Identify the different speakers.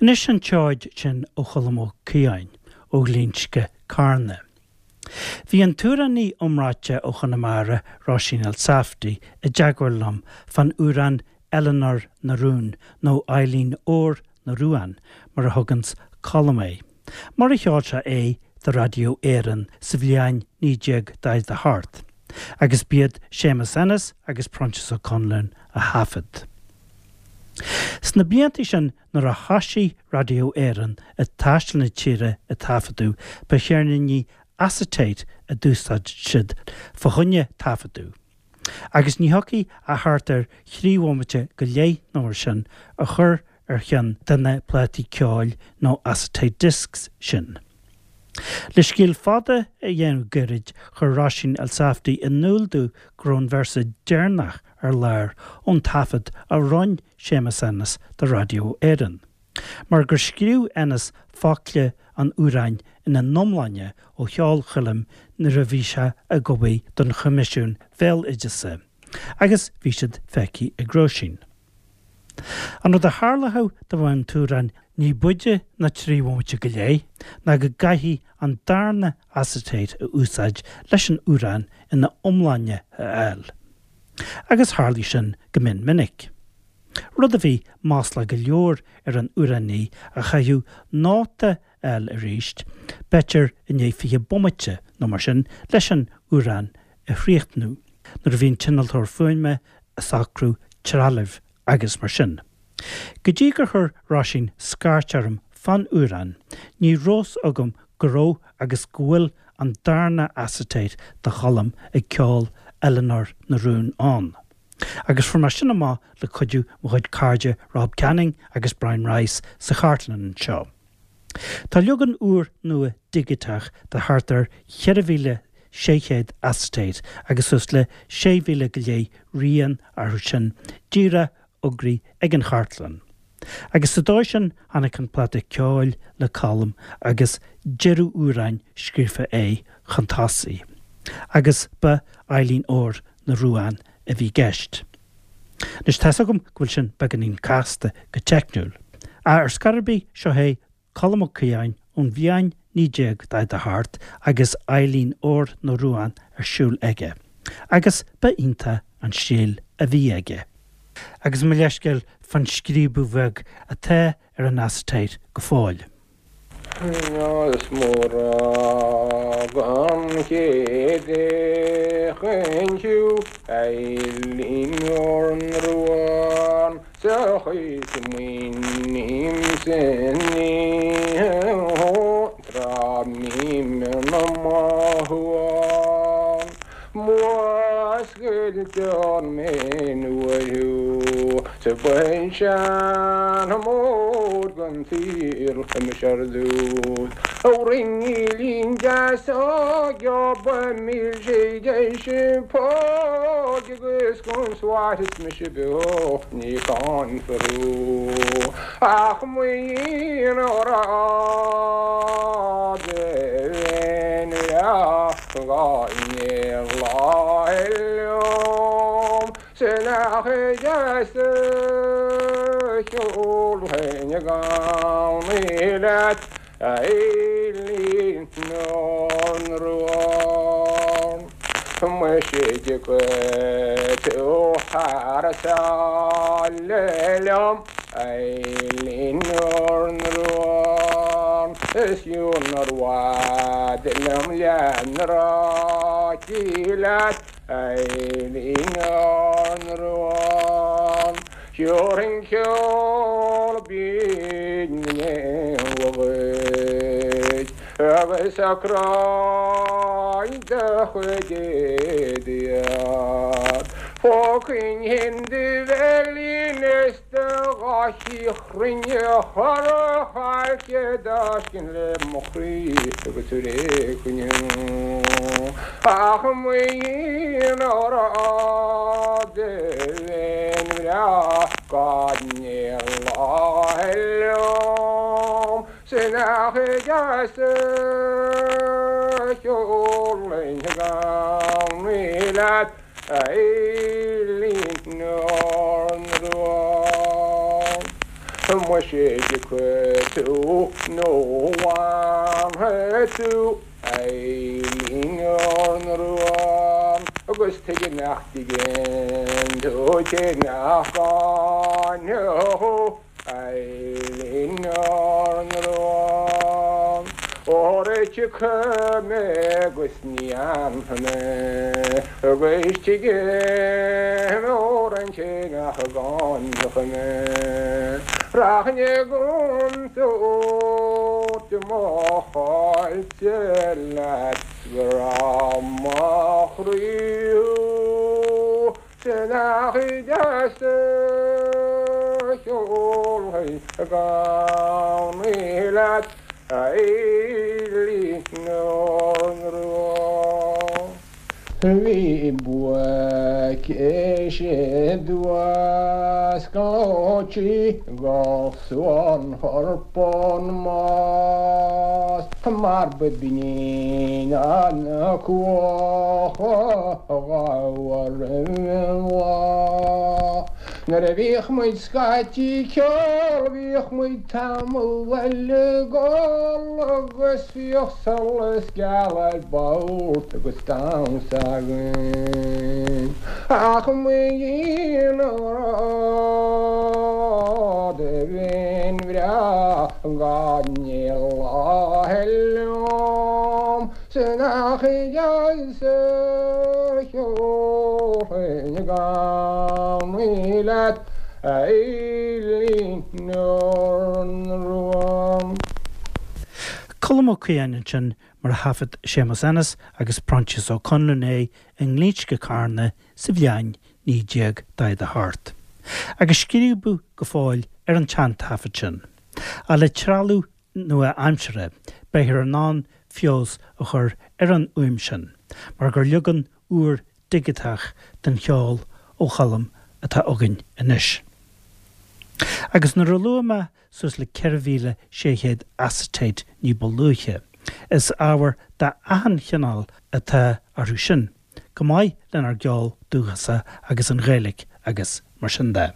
Speaker 1: Anois an tseoid sin ó Cholm Ó Caodháin ó Ghlinsce, Carna. Bhí an t-amhránaí iomráite ó Chonamara, Róisín Elsafty, i dteagmháil liom fán amhrán Eleanor na Rún nó Eibhlín Óir na Ruán mar a thuganns Colm é, mar a cheol sé é do Raidió Éireann sa bhliain 1948, agus b'iad Séamus Ennis agus Proinsias Ó Conluain a thaifead. Sna blianta sin nuair a thoisigh Raidió Éireann ag taisteal na tíre ag taifeadadh, ba cheirníní acetate a d'úsáid siad fá choinne taifeadadh. Agus ní thiocfadh ach thart ar thrí bhomaite go leith nó mar sin a chur ar cheann de na plátaí ceoil nó acetate discs sin. Le scéal fada a dhéanamh gairid, chuir Róisín Elsafty in iúl domh go raibh an véarsa deireanach ar lár ón taifead a roinn Séamus Ennis do Raidió Éireann. Mar gur scríobh Ennis focla an amhráin ina n-iomláine ó cheol Choilm nuair a bhí sé ag obair don Choimisiún Bhéaloideasa, agus bhí siad feicthe ag Róisín. An rud a tharlódh dá mbeadh an t-amhrán ní b'fhaide ná 3 bhomaite go leith ná go gcaithfí an darna acetate a úsáid leis an amhrán ina iomláine a fháil. Agus tharlaigh sin go mion minic. Rud a bhí maslach go leor ar an amhránaí a chaithfeadh nóta a fháil arís, b'fhéidir i ndiaidh 20 bomaite nó mar sin, leis an amhrán a chríochnú, nuair a bhí an t-innealtóir fuaime ag socrú trealaimh agus mar sin. Go dtí gur chuir Róisín scairt orm fán amhrán, ní raibh fhios agam go raibh agus go bhfuil an darna acetate de Cholm ag ceol Eileanóir na Rún ann. Agus fuair mé sin amach le cuidiú mo chuid cairde Rob Canning agus Brian Rice sa chartlann anseo. Tá leagan úr nua digiteach de thart ar 4,600 acetate agus suas le 6,000 go leith rian orthu sin díreach fógraithe ag an chartlann. Agus sa dóigh sin tháinig an pláta ceoil le Colm agus deireadh amhráin scríofa aige chun tosaigh. Agus ba Eibhlín Óir na Ruán a bhí i gceist. Anois tá's agam go bhfuil sin beagáinín casta go teicniúil. Ach ar scor ar bith, seo é Colm Ó Caodháin ón bhliain 1948 agus Eibhlín Óir na Ruán ar siúl aige. Agus ba iontach an stíl a bhí aige. Agus mo leithscéal fán scríobadh bheag atá ar an acetate go fóill.
Speaker 2: Is murab an chéad fhéachaint thú Eibhlín Óir na Ruán sa chaoi smaoinímse tráth mbím ina mothúchán Múscailtear mé nuair thú sa bpinsean mór den tsaol mise ar dtús. Ó ringílín deas geoba milse deis póg agus consóir is mise beo ní cáinfear thú ach maoin rá de bheinn breá. Gáinne lá liom sin a chuideas cheol féin i gcónaí leat a Eibhlín Óir na Ruán. Muise dtiocfaidh tú thar sáile liom a Eibhlín Óir na Ruán is fiú nár mhaith liom lena ráití leat a Eibhlín Óir na Ruán. Thiúrfainn ceol binn na n-éanlaith dhuit agus socróinn do chuid éadaí Phógfainn do bhéilín is Do gháithí chruinne chora chailce d'fháiscinn le mo chroí agus ar éigean ach maoin rá de bheinn bhreá gan aon lá liom sin ach deas cheol linn gan leat A Eibhlín Óir na Ruán. Muise tiocfaidh tú nó fanfaidh tú a Eilín Ór na Rua agus tuige nach dtigeann tú cé nach gcáinfeadh thú a Eilín Ór na Rua Óra tiocfaidh mé agus ní fhanfaidh mé agus tuige óra an té nach gcáinfeadh mé Rachainn i gcontúirt mo cháillte leat 's go raibh mo chroí thú 's nach deas a cheolfainn i gcónaí leat a Eilín Ór na Rua. Bhí buaic sé duas gleoite go suan chorpán más mar ba binn an cuach a ghabh roimh an lá. Nuair a bhíodh muid scaití ag ceol bhíodh muid tamall eile ag ól agus bhíodh solas geal ar bord agus damhsa againn. Ach mo dhian ghrá do bheinn bhreá gan ní lá liom 's nach deas a cheolfainn i gcónaí leat a Eilín Ór na Rua.
Speaker 1: Colm Ó Caodháin ansin mar a thaifead Séamus Ennis agus Proinsias Ó Conluain é i nGlinsce Carna sa bhliain 1948. Agus scríobadh go fóill ar an tseantaifead sin. Ach le trealamh nua-aimseartha, beifear in ann feabhas a chur ar an fhuaim sin, mar gur leagan úr digiteach den cheol ó Cholm atá againn anois. Agus nuair a luaigh mé suas le 4,600 acetate ní ba luaithe, is ábhar d'achan chineál atá orthu sin, go maith lenár gceol dúchasach agus an Ghaeilge agus mar sin de.